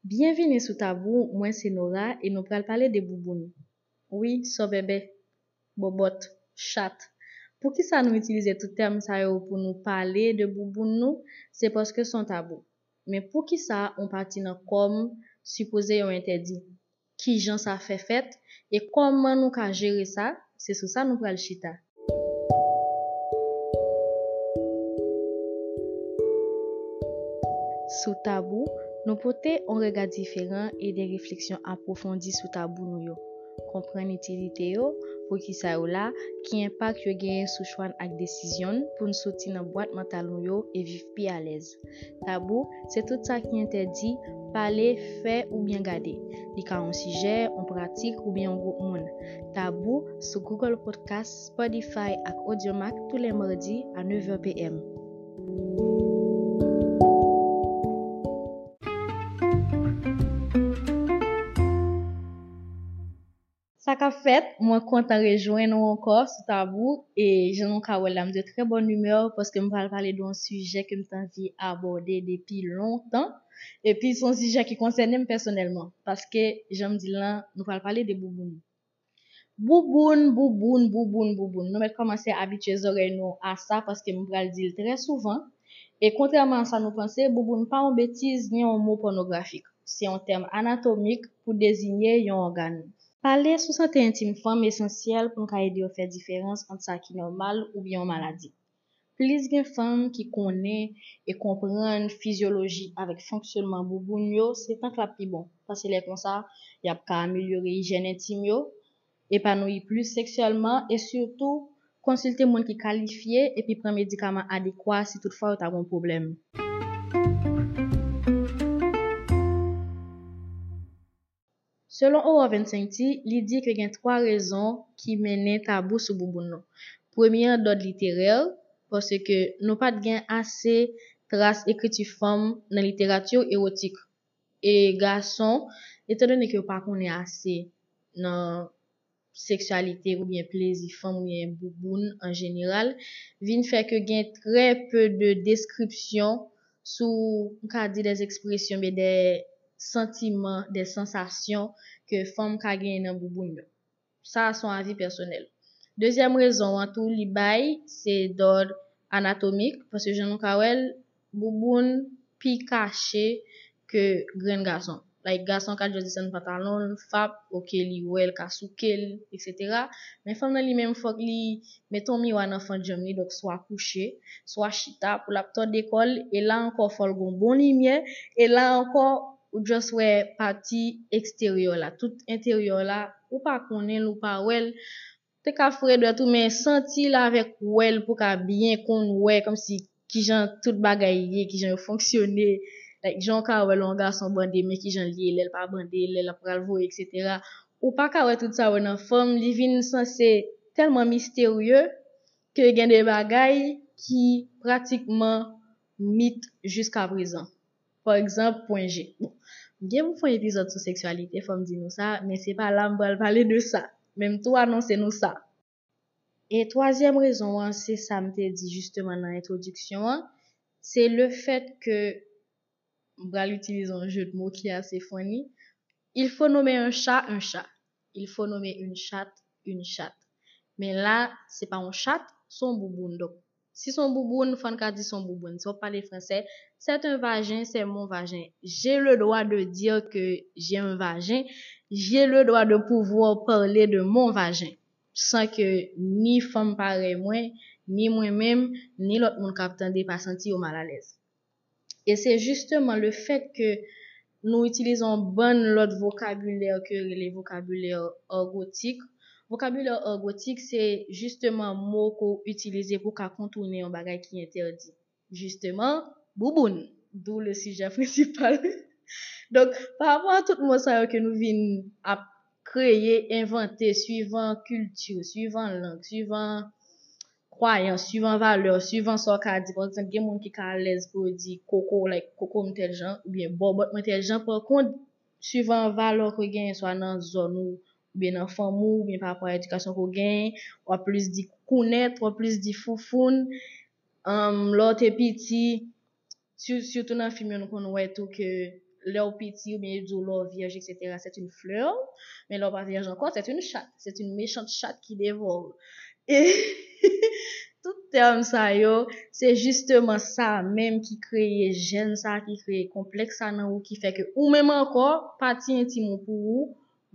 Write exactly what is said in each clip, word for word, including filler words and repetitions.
Byenvini sou Tabou, mwen se Nora e nou pral pale de bouboun. Wi, sòbèbè, bòbòt, chat. Poukisa nou itilize tout tèm sa yo pou nou pale de bouboun nou? Se paske se yon tabou. Men poukisa yon pati nan kò m sipoze yon entèdi? Kijan sa fè fèt? E kòman nou ka jere sa? Se sou sa nou pral chita. Sou Tabou, nou pote yon rega diferan e de refleksyon apwofondi sou tabou nou yo. Konprann itilite yo, poukisa yo la, ki enpak yo genyen sou chwa n ak desizyon n pou n soti nan bwat mantal nou yo e viv pi alèz. Tabou, se tout sa ki entèdi pale, fè oubyen gade. Li ka yon sijè, yon pratik oubyen yon gwoup moun. Tabou sou Google Podcast, Spotify ak Audiomack tou lè madi a nèf è p m. Sa k ap fèt, mwen kontan rejwenn ou ankò sou Tabou e jan nou ka wè la, m de trè bòn imè paske m pral pale de yon sijè ke m te anvi abòde depi lontan. Epi se yon sijè ki konsène m pèsonèlman paske jan m di l lan, nou pral pale de bouboun. Bouboun, bouboun, bouboun, bouboun. Nou mèt kòmanse abitye zòrèy nou a sa paske m pral di l trè souvan. E kontrèman a sa nou panse, bouboun pa yon betiz ni yon mo pònografik. Se yon tèm anatomik pou deziye yon ògàn. Pale sou sante entim fanm esansyèl pou n ka ede yo fè diferans ant sa ki nòmal oubyen yon maladi. Plis gen fanm ki konnen e konprann fizyoloji avèk fonksyònman bouboun yo, se tank l ap pi bon, paske lè konsa, y ap ka amelyore ijyèn entim yo, epanouyi plis seksyèlman e sitou konsilte moun ki kalifye epi pran medikaman adekwa si toutfwa yo ta gen yon pwoblèm. Selon Aurore Vincenti, li di ke gen twa rezon ki mennen tabou sou bouboun nou. Premye an dòd literè, paske nou pa t gen ase tras ekriti fanm nan literati ewotik. E gason, etandone ke yo pa konnen ase nan seksyalite oubyen plezi fanm oubyen bouboun an jeneral, vin fè ke gen trè pe de deskripsyon sou, m ka di, des expressions, oubyen des sentiments, des sensations ke fanm ka genyen nan bouboun yo. Sa a se yon avi pèsonèl. Dezyèm rezon an tou, li bay, se dòd anatomik, paske jan nou ka wè l, bouboun pi kache ke grenn gason. Like, gason ka just desann pantalon l, fap, oke, li wè l ka souke l, etsetera. Men fanm nan li menm, fòk li mete yon miwa nan fannjanm li, donk swa kouche, swa chita, pou l ap tòde kò l, e la ankò, fò l gen yon bon limyè, e la ankò, ou just wè pati eksteryè la. Tout enteryè la, ou pa konnen l, ou pa wè l, te ka fredè tou, men santi l avèk wè l pou ka byen konn wè, kòmsi kijan tout bagay ye, kijan yo fonksyone, like, jan w ka wè lè yon gason bande, men kijan l ye lè l pa bande, lè l ap pral voye, etsetera. Ou pa ka wè tout sa yo nan fanm, li vin sanse tèlman misterye ke gen de bagay ki pratikman mit jiskaprezan. Pa egzanp, pwen G. Bon, m gen pou fè yon epizòd sou seksyalite, fò m di nou sa, men se pa la m pral pale de sa. Men m tou anonse nou sa. E twazyèm rezon an, se sa m te di jisteman nan entwodiksyon an, se le fèt ke, m pral itilize yon jeu de mots ki ase funny, il faut nommer un chat un chat, il faut nommer une chatte une chatte. Men la, se pa yon chat, se yon bouboun. Donk, si se yon bouboun, fò n ka di se yon bouboun. Si w ap pale fransè, c'est un vagin, c'est mon vagin. J'ai le droit de dire que j'ai un vagin. J'ai le droit de pouvoir parler de mon vagin. San ke ni fanm parèy mwen, ni mwen menm, ni lòt moun k ap tande pa santi yo malalèz. E se jisteman le fèt ke nou itilize yon bann lòt vokabilè ke yo rele vokabilè argotik. Vokabilè argotik, se jisteman mo ke w itilize pou w ka kontounen yon bagay ki entèdi. Jisteman, bouboun. D'où le sujet principal. Donk, pa rapò a tout mo sa yo ke nou vin ap kreye, envante, suivan kilti, suivan lang, suivan kwayans, suivan valè, suivan sa w ka di. Pa egzanp, gen moun ki ka alèz pou yo di koko, like, koko m tèl jan, oubyen bòbòt mwen tèl jan. Pa kont, suivan valè ke w genyen, swa nan zòn ou, oubyen nan fanmi w, oubyen pa rapò a edikasyon ke w genyen, w ap plis di kounèt, w ap plis di foufoun. Anm, lè w te piti, si-, sitou nan fim yo, nou konn wè tou ke Lè w piti, oubyen yo di w lè w vyèj, et cetera, c'est une fleur. Men lè w pa vyèj ankò, c'est une chatte. C'est une méchante chatte qui dévore. E tout tèm sa yo, se jisteman sa menm ki kreye jèn sa, ki kreye konplèks sa nan ou, ki fè ke ou menm ankò, pati entim ou pou ou,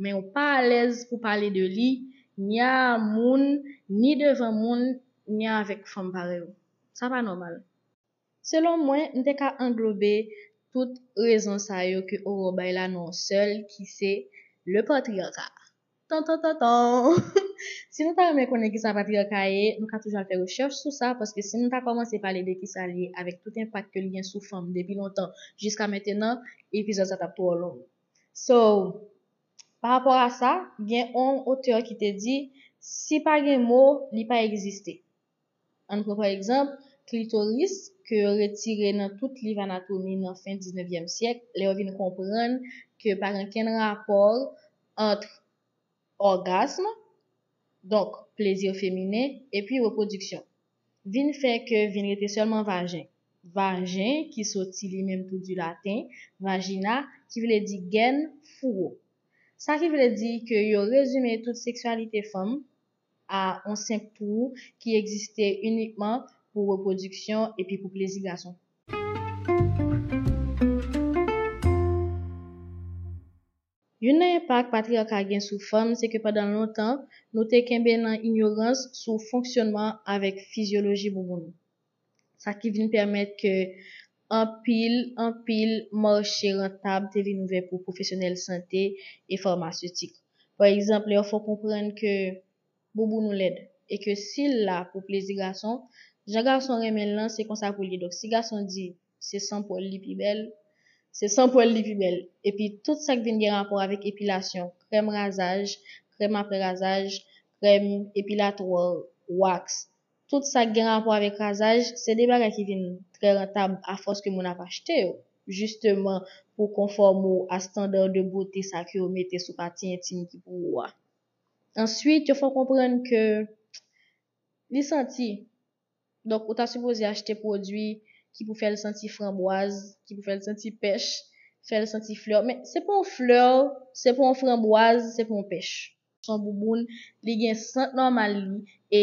men ou pa alèz pou pale de li, ni a moun, ni devan moun, ni avèk fanm parèy ou. Sa pa nòmal. Selon mwen, m te ka anglobe tout rezon sa yo ke Aurore bay la nan yon sèl, ki se le patriarcat. Tan, tan, tan, tan. Si nou ta renmen konnen ki sa patriarka ye, nou ka toujou al fè rechèch sou sa, paske si nou ta kòmanse pale de ki sa l ye avèk tout enpak ke l gen sou fanm depi lontan jiska mentenan, epizòd sa t ap twò long. So, pa rapò a sa, gen yon otè ki te di, si pa gen mo, li pa egziste. Ann pran pa egzanp, klitoris, ke yo retire nan tout liv anatomi nan fen diznevyèm syèk, lè yo vin konprann ke pa gen kenn rapò ant ògasm, donk plezi feminen, epi repwodiksyon. Vin fè ke vin rete sèlman vajen. Vajen, ki soti li menm tou di laten, vagina, ki vle di gèn, fouwo. Sa ki vle di ke yo rezime tout seksyalite fanm a yon senp twou ki egziste inikman pou repwodiksyon epi pou plezi gason. Youn nan enpak patriyaka gen sou fanm, se ke pandan lontan, nou te kenbe nan inyorans sou fonksyonman avèk fizyoloji bouboun. Sa ki vin pèmèt ke anpil, anpil mache rantab te vin ouvè pou pwofesyonèl sante e famasetik. Pa egzanp, lè yo fè w konprann ke bouboun ou lèd e ke si l la pou plezi gason, jan gason renmen l lan, se konsa pou l ye. Donk, si gason di se san pwèl li pi bèl, se san pwèl li pi bèl. Epi tout sa k vin gen rapò avèk epilasyon, krèm razaj, krèm apre razaj, krèm epilatwa, wax, tout sa k gen rapò avèk razaj, se de bagay ki vin trè rantab afòs ke moun ap achte yo, jisteman pou konfòme w a standar de bote sa ke yo mete sou pati entim ki pou ou a. Answit, yo fè w konprann ke li santi. Donk, ou ta sipoze achte pwodui ki pou fè l santi franbwaz, ki pou fè l santi pèch, fè l santi flè. Men se pa yon flè, se pa yon franbwaz, se pa yon pèch. Se yon bouboun, li gen sant nòmal li, e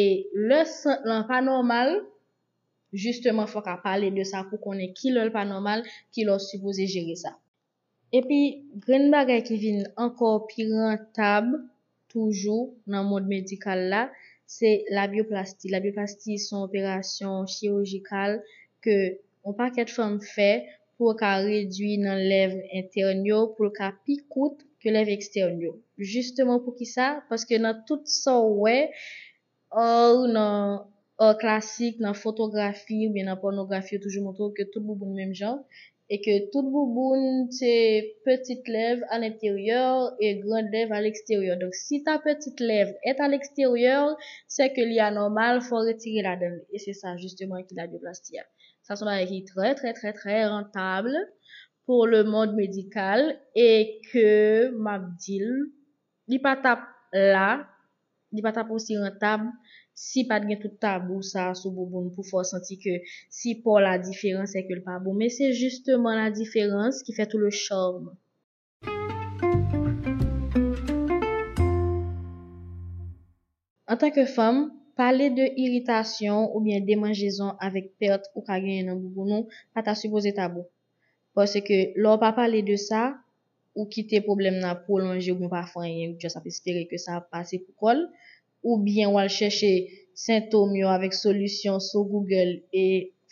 lè sant lan pa nòmal, jisteman, fò w ka pale de sa pou konnen ki lè l pa nòmal, ki lè w sipoze jere sa. Epi, grenn bagay ki vin ankò pi rantab toujou nan mond medikal la, se labyoplasti. Labyoplasti se yon operasyon chirijikal ke yon pakèt fanm fè pou yo ka redui nan lèv entèn yo, pou l ka pi kout ke lèv ekstèn yo. Jisteman poukisa? Paske nan tout sa w wè, art, nan art klasik, nan fotografi oubyen nan pònografi, yo toujou montre w ke tout bouboun menm jan, e ke tout bouboun se petit lèv à l'intérieur et grande lèv à l'extérieur. Donk, si ta petite lèvre est à l'extérieur, c'est que li anòmal, fò retire ladan l. E se sa, jisteman, ki labyoplasti a. Sa se yon bagay ki trè, trè, trè, trè rantab pour le monde médical e ke, m ap di l, li pa t ap la, li pa t ap osi rantab si pa t gen tout tabou sa a sou bouboun pou fè w santi ke si po w la diferan, se ke l pa bon. Men se jisteman la diferans ki fè tout le charme. Antanke fanm, pale de iritasyon oubyen demanjezon avèk pèt ou ka genyen nan bouboun ou pa ta sipoze tabou. Paske lè w pa pale de sa, ou kite pwoblèm nan ap pwolonje oubyen w pa fè anyen, ou just ap espere ke sa ap pase pou kò l, oubyen w al chèche sentòm yo avèk solisyon sou Google e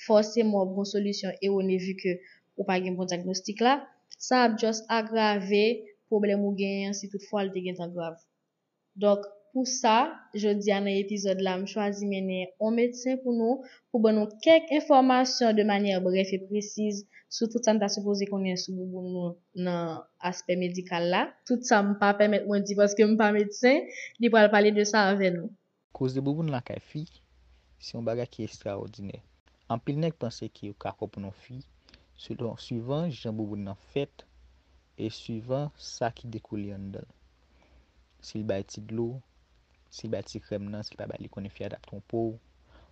fòseman w ap gen yon solisyon erone vi ke ou pa gen bon dyagnostik la, sa ap just agrave pwoblèm ou genyen an si toutfwa l te gentan grav. Donk, pou sa, jodi a nan epizòd la, m chwazi mennen yon medsen pou nou, pou ban nou kèk enfòmasyon de manyè brèf e presiz sou tout sa n ta sipoze konnen sou bouboun nou nan aspè medikal la. Tout sa m pa pèmèt mwen di paske m pa medsen, li pral pale de sa avè nou. Koze bouboun lakay fi, se yon bagay ki estrawòdinè. Anpil nèg panse ke yo ka konprann yon fi selon, suivan jan bouboun nan fèt e suivan sa ki dekoule anndan l. Si l bay ti dlo, si l bay ti krèm nan, si l pa bay li, konnen fi a t ap twonpe w,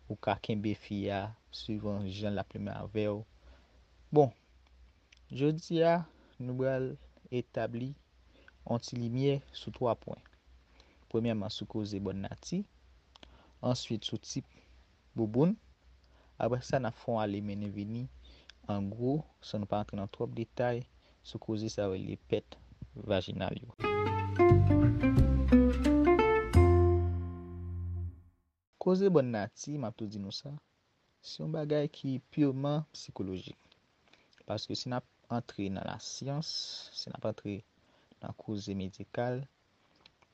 ou ka kenbe fi a suivan jan l ap limen avè w. Bon, jodi a, Nou pral etabli yon ti limyè sou twa pwen. Premyèman, sou koze bòn nati, answit, sou tip bouboun. Apre sa, n ap fè yon ale mennen vini, an gwo, san nou pa rantre nan twòp detay, sou koze sa yo rele pèt vajinal yo. Koze bòn nati, m ap tou di nou sa, se yon bagay ki pirman sikolojik. Paske si n ap antre nan lasyans, si n ap antre nan koze medikal,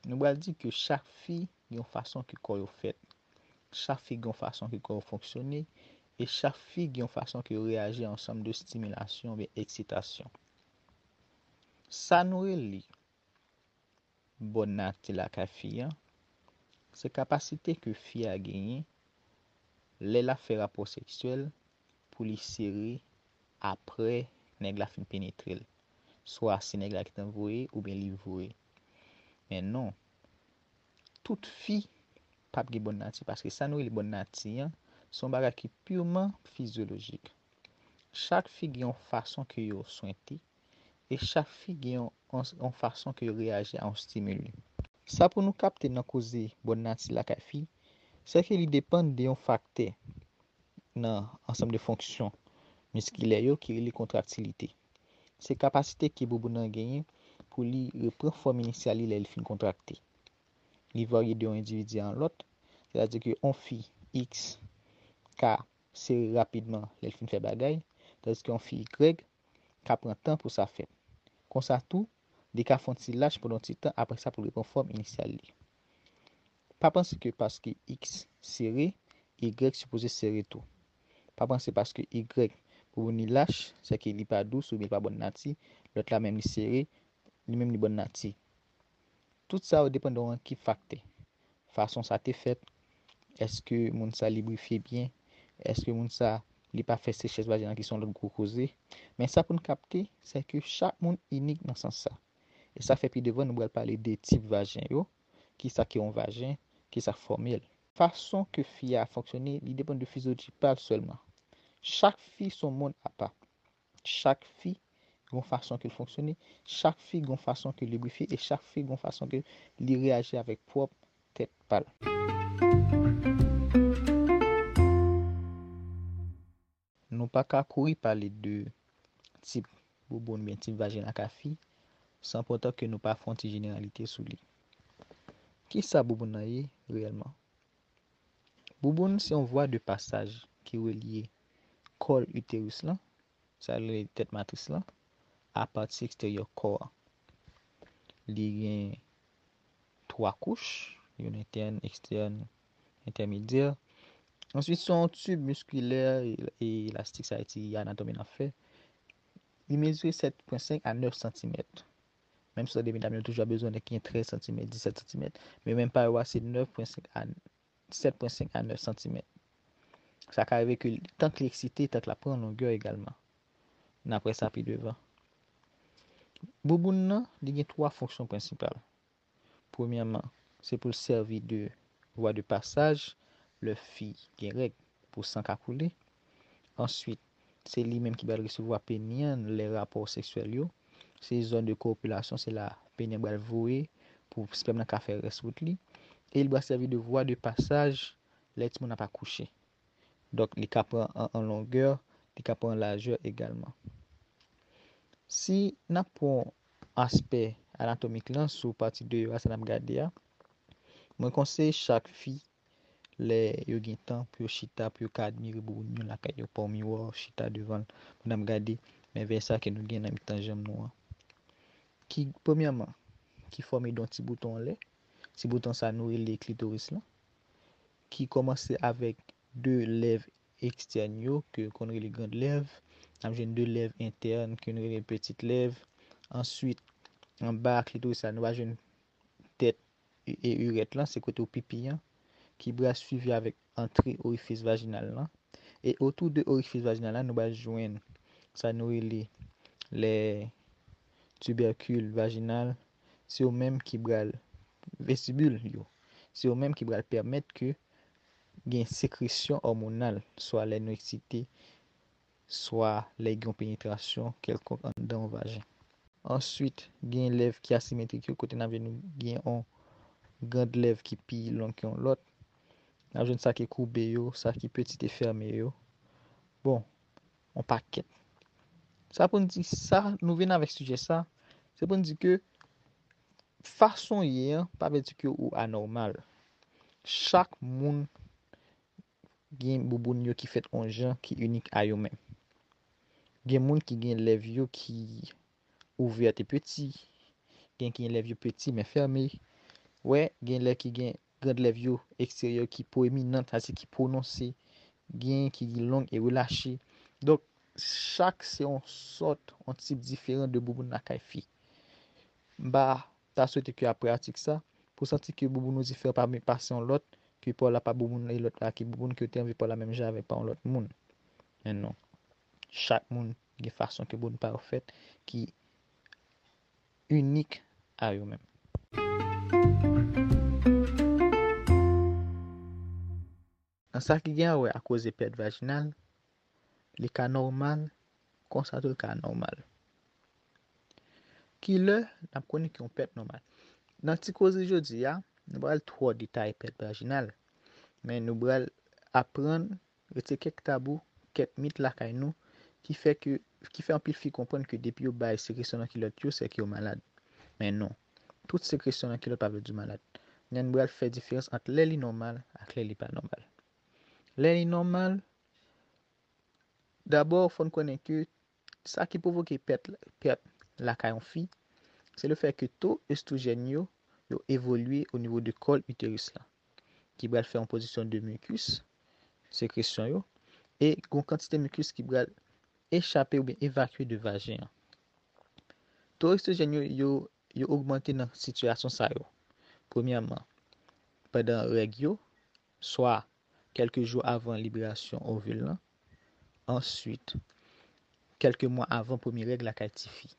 nou pral di ke chak fi gen yon fason ke kò yo fèt. Chak fi gen yon fason ke kò yo fonksyone, e chak fi gen yon fason ke yo reyaji a yon ansanm de estimilasyon oubyen eksitasyon. Sa nou rele bòn nati lakay fi a, se kapasite ke fi a genyen lè l ap fè rapò seksyèl pou li sere apre nèg la fin penetre l. Swa se nèg la ki t ap voye oubyen li voye. Men non, tout fi p ap gen bòn nati, paske sa nou rele bòn nati an, se yon bagay ki pirman fizyolojik. Chak fi gen yon fason ke yo swente, e chak fi gen yon, yon, yon fason ke yo reyaji a yon stimili. Sa pou nou kapte nan koze bòn nati lakay fi, se ke li depann de yon faktè nan ansanm de fonksyon miskilè yo ki rele kontraktilite. Se kapasite ke bouboun nan genyen pou li repran fòm inisyal li lè li fin kontrakte. Li varye de yon endividi a yon lòt, sètadi ke yon fi X ka sere rapidman lè l fin fè bagay, tandiske yon fi Y ka pran tan pou sa fèt. Konsa tou, li ka fè yon ti lach pandan yon ti tan, apre sa pou l repran fòm inisyal li. Pa panse ke paske X sere, Y sipoze sere tou. Pa panse paske Y bouboun li lach, sèke li pa dous oubyen li pa bòn nati, lòt la menm li sere, li menm li bòn nati. Tout sa yo depann de yon ekip faktè. Fason sa te fèt, èske moun sa librifye byen, èske moun sa li pa fè sechès vajinal ki se yon lòt gwo koze. Men sa pou n kapte, se ke chak moun inik nan sans sa. E sa fè pi devan nou pral pale de tip vajen yo, kisa ki yon vajen, kisa fòmèl. Fason ke fi a fonksyone, li depann de fizyoloji pa l sèlman. Chak fi se yon mond apa. Chak fi gon fason ke l fonksyone, chak fi gon fason ke l librifye e chak fi gon fason ke li reyaji avèk pwòp tèt pa l. Nou pa ka kouri pale de tip bouboun oubyen tip vajen lakay fi san poutan ke nou pa fè yon ti jeneralite sou li. Kisa bouboun nan ye reyèlman? Bouboun se yon vwa de pasaj ki relye kòl iteris lan, sa rele tèt matris lan, a pati eksteryè kò a. Li gen twa kouch, youn entèn, ekstèn, entèmedyè. Answit, se yon tib miskilè e, e elastik, sa vle di anatomi n ap fè. Li mezire sèt pwen senk a nèf santimèt. Menm si w tande medam yo toujou ap bezwen nèg ki gen trèz santimèt, disèt santimèt, men menm pa yo a se nèf pwen senk a sèt pwen senk a nèf santimèt. Sa ka rive ke tank li eksite, tank l ap pran longè egalman. N ap wè sa pi devan. Bouboun nan, li gen twa fonksyon prensipal. Premyèman, se pou l sèvi de vwa de pasaj lè fi gen règ pou san ka koule. Answit, se li menm ki pral resevwa peni an lè rapò seksyèl yo. Se zòn de kopilasyon, se la peni an pral voye pou spèm nan ka fè rès wout li. E li pral sèvi de vwa de pasaj lè timoun nan pa kouche. Donk, li ka pran an, an longè, li ka pran lajè egalman. Si n ap pran aspè anatomik lan sou pati deyò a, sa n ap gade a, mwen konseye chak fi, lè yo gen tan pou yo chita, pou yo ka admire bouboun yo lakay yo, pran yon miwa, chita devan l, pou n ap gade mèvèy sa ke nou gen nan mitan janm nou an. Ki, premyèman, ki fòme de yon ti bouton anlè. Ti bouton sa nou rele klitoris lan, ki kòmanse avèk de lèv ekstèn yo, ke yo konn rele grand lèv. N ap jwenn de lèv entèn, ke nou rele petit lèv. Answit, anba klitoris la, nou va jwenn tèt e, e irèt lan, se kote w pipi an, ki pral swivi avèk antre orifis vajinal lan. E otou de orifis vajinal la, nou pral jwenn sa nou rele lè tibèkil vajinal, se yo menm ki pral, vestibul yo, se yo menm ki pral pèmèt ke gen sekresyon òmonal, swa lè nou eksite, swa lè gen yon penetrasyon kèlkonk anndan yon vajen. Answit, gen lèv ki asimetrik yo, kote n ap jwenn gen yon grand lèv ki pi long ke yon lòt. N ap jwenn sa ki koube yo, sa ki petit e fèmen yo. Bon, yon pakèt. Sa pou n di sa, nou vin avèk sijè sa, se pou n di ke fason w ye an pa vle di ke ou anòmal. Chak moun gen bouboun yo ki fèt yon jan ki inik a yo menm. Gen moun ki gen lèv yo ki ouvè e peti, gen ki gen lèv yo peti men fèmen. Wè, gen lè ki gen grand lèv yo eksteryè ki pwominan, sa se ki pwononse, gen ki long e relache. Donk, chak se yon sòt, yon tip diferan de bouboun lakay fi. M pa ta swete ke aprè atik sa, pou santi ke bouboun ou diferan pa men pase yon lòt, ke pa w la pa bouboun e lòt la ki bouboun, ke w te anvi pa w la menm jan avèk pa yon lòt moun. Men non. Chak moun gen fason ke bouboun pa yo fèt ki inik a yo menm. Nan sa ki gen a wè a koze pèt vajinal, li ka nòmal, konsa tou li ka anòmal. Kilè n ap konnen ke yon pèt nòmal? Nan ti koze jodi a, nou pral twò detaye pèt vajinal, men nou pral aprann retire kèk tabou, kèk mit lakay nou ki fè ke, ki fè anpil fi konprann ke depi yo bay sekresyon nan kilòt yo, sèke yo malad. Men non, tout sekresyon nan kilòt pa vle di w malad. Men n pral fè diferans ant lè li nòmal ak lè li pa nòmal. Lè li nòmal, dabò, fò n konnen ke sa ki pwovoke pèt, pèt lakay yon fi, se le fè ke to estwojèn yo, yo evolye o nivo de kòl iteris la, ki pral fè yon pwodiksyon de mikis, sekresyon yo, e gon kantite mikis ki pral echape oubyen evakye de vajen an. To estwojèn yo, yo, yo ogmante nan sitiyasyon sa yo. Premyèman, pandan règ yo, swa kèlke jou avan liberasyon ovil lan, answit, kèlke mwa avan premye règ lakay tifi.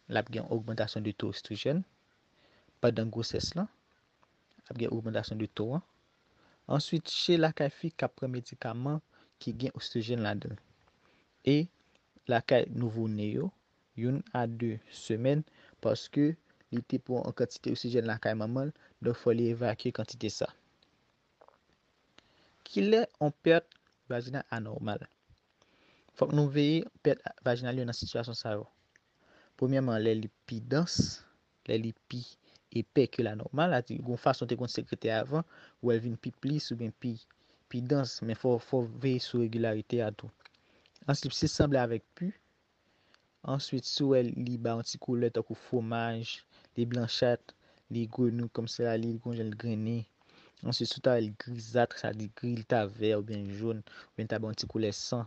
L ap gen ogmantasyon de to estwojèn. Pandan gwosès lan, l ap gen ogmantasyon de to an. Answit, chè lakay fi k ap pran medikaman ki gen estwojèn ladan l. E lakay nouvo ne yo, youn a de semèn, paske li te pran yon kantite estwojèn lakay manman l, donk fò li evakye kantite sa. Kilè yon pèt vajinal anòmal? Fòk nou veye pèt vajinal yo nan sitiyasyon sa yo. Premyèman, lè li pi dans, lè li pi epè ke la nòmal, sa di gon fason te konn sekrete avan, ou wè l vin pi plis oubyen pi, pi dans, men fò, fò veye sou regilarite a tou. Answit, si l sanble avèk pi, answit, si w wè li ba yon ti koulè tankou fwomaj, li blanchat, li grenou kòmsi la, li gon jan l grennen. Answit, si w ta wè l grizat, sa di gri, li ta vè oubyen jòn, oubyen li ta ba yon ti koulè san,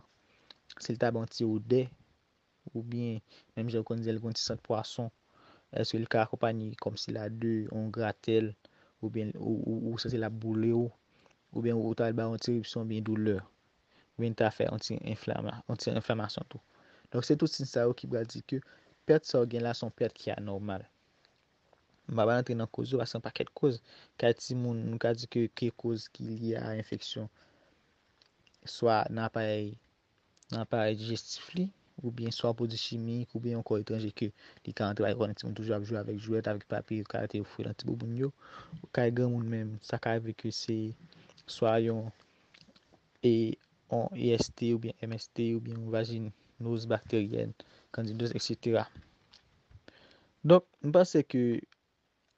si l ta ba yon ti odè, oubyen menm jan ou konn di l gon ti sant pwason, èske l ka akonpanye kòmsi la de yon gratèl, oubyen ou, ou, ou santi l ap boule w, oubyen ou ta al ba yon ti eripsyon oubyen doulè, oubyen ta fè yon ti enflama-, yon ti enflamasyon tou. Donk, se tout siy sa yo ki pral di ke pèt sa w gen la se yon pèt ki anòmal. M pa pral antre nan koz yo, paske yon pakèt koz. Kay timoun, nou ka di ke, ke koz ki lye a enfeksyon, swa nan aparèy, nan aparèy dijestif li, oubyen swa pwodui chimik, oubyen yon kò etranje ke li ka antre, pa egzanp, timoun toujou ap jwe avèk jwèt, avèk papye, yo ka rete yo fouye nan ti bouboun yo. Kay granmoun menm, sa ka rive ke se swa yon, e, yon E S T oubyen M S T oubyen yon vajinoz bakteryèn, kandidoz, et cetera. Donk, m panse ke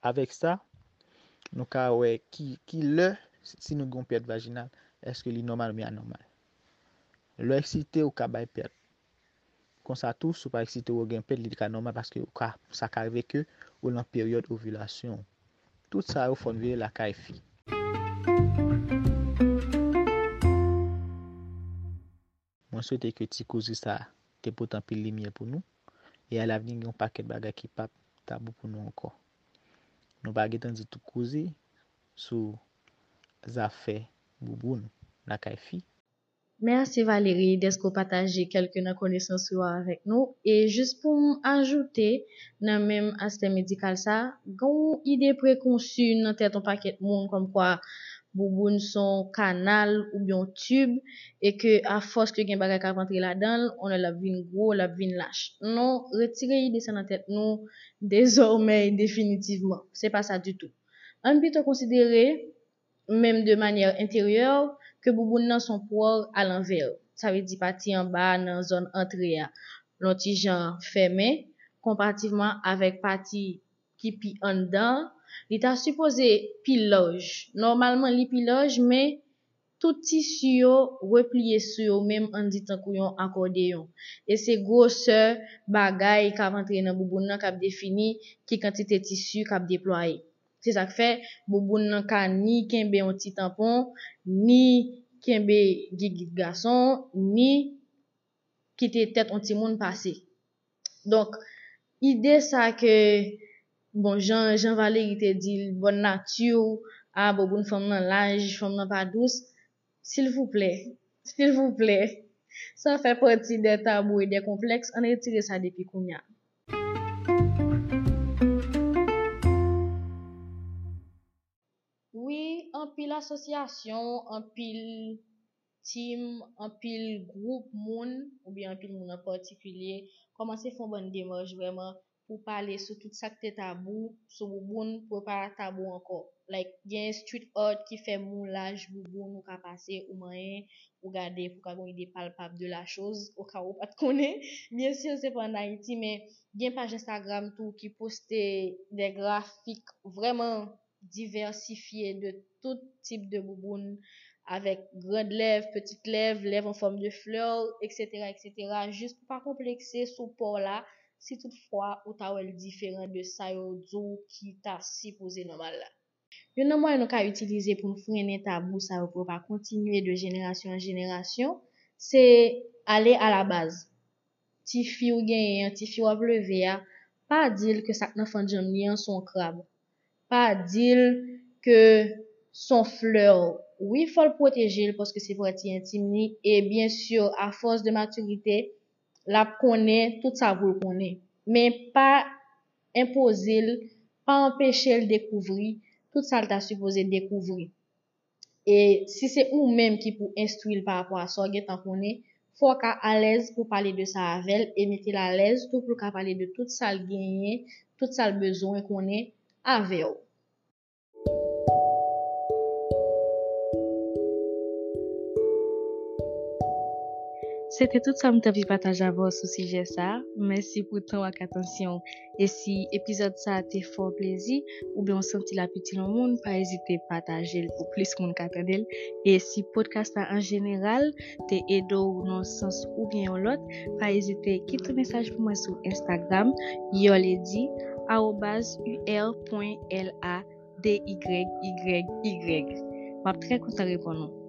avèk sa, nou ka wè ki, ki lè, si nou gen yon pèt vajinal, èske li nòmal oubyen anòmal. Lè w eksite, ou ka bay pèt. Konsa tou, si w pa eksite, ou gen pèt, li ka nòmal paske ou ka, sa ka rive ke ou nan peryòd ovilasyon. Tout sa yo fò n veye lakay fi. Mwen swete ke ti koze sa te pote anpil limyè pou nou, e alavni gen yon pakèt bagay ki p ap tabou pou nou ankò. Nou pa gentan di tout koze sou zafè bouboun lakay fi. Mèsi Valérie dèske w pataje kèlke nan konesans ou yo avèk nou. E jis pou m ajoute, nan menm aspè medikal sa, gen yon ide prekonsi nan tèt yon pakèt moun kòmkwa bouboun se yon kanal oubyen yon tib, e ke afòs ke gen bagay k ap antre ladan l, on lè l ap vin gwo, l ap vin lach. Non, retire ide sa nan tèt nou dezòmè e definitivman. Se pa sa ditou. Ann pito konsidere, menm de manyè enteryè, ke bouboun nan se yon pwòl alanvè. Sa vle di pati anba a nan zòn antre a, yon ti jan fèmen, konparativman avèk pati ki pi anndan, li ta sipoze pi laj. Nòmalman, li pi laj, men tout tisi yo repliye sou yo menm, ann di tankou yon akòdeyon. E se gwosè bagay k ap antre nan bouboun nan k ap defini ki kantite tisi k ap deplwaye. Se sa k fè bouboun nan ka ni kenbe yon ti tanpon, ni kenbe gigit gason, ni kite tèt yon timoun pase. Donk, ide sa ke, bon, jan, jan Valery te di l, bòn nati, a, bouboun fanm nan laj, fanm nan pa dous, silvouplè, silvouplè, sa fè pati de tabou e de konplèks, ann retire sa depi kounye a. Wi, anpil asosyasyon, anpil team, anpil gwoup moun, oubyen anpil moun an patikilye, kòmanse fè yon bann demach vrèman pou pale sou tout sa k te tabou sou bouboun, pou yo pa tabou ankò. Like, gen street art ki fè moulaj bouboun, ou ka pase, ou manyen, ou gade, pou ka gen yon ide palpab de la chose, oka ou pa t konnen. Byen si se pa ann Ayiti, men gen paj Instagram tou ki poste de grafik vrèman divèsifye de tout tip de bouboun, avèk grand lèv, petit lèv, lèv an fòm de flè, et cetera, et cetera, jis pou pa konplekse sou po w la, si toutfwa ou ta wè l diferan de sa yo di w ki ta sipoze nòmal la. Youn nan mwayen nou ka itilize pou n frennen tabou sa yo pou yo pa kontinye de jenerasyon an jenerasyon, se ale a la baz. Tifi w genyen an, tifi w ap leve a, pa di l ke sa k nan fannjanm li an se yon krab. Pa di l ke se yon flè. Wi, fò l pwoteje l paske se pati entim li. E byen si, afòs de matirite, l ap konnen tout sa pou l konnen. Men pa enpoze l, pa anpeche l dekouvri tout sa l ta sipoze dekouvri. E si se ou menm ki pou enstwi l pa rapò a sa w gentan konnen, fò w ka alèz pou pale de sa avè l e mete l alèz tou pou l ka pale de tout sa l genyen, tout sa l bezwen konnen avè w. Se te tout sa m t anvi pataje avè w sou sijè sa a. Mèsi pou tan w ak atansyon w. E si epizòd sa a te fè w plezi, oubyen w santi l ap itil yon moun, pa ezite pataje l pou plis moun ka tande l. E si podcast la an jeneral te ede w nan yon sans oubyen yon lòt, pa ezite kite mesaj pou mwen sou Instagram, Yolady, arobaz u r pwen l a d y y y. M ap trè kontan reponn ou.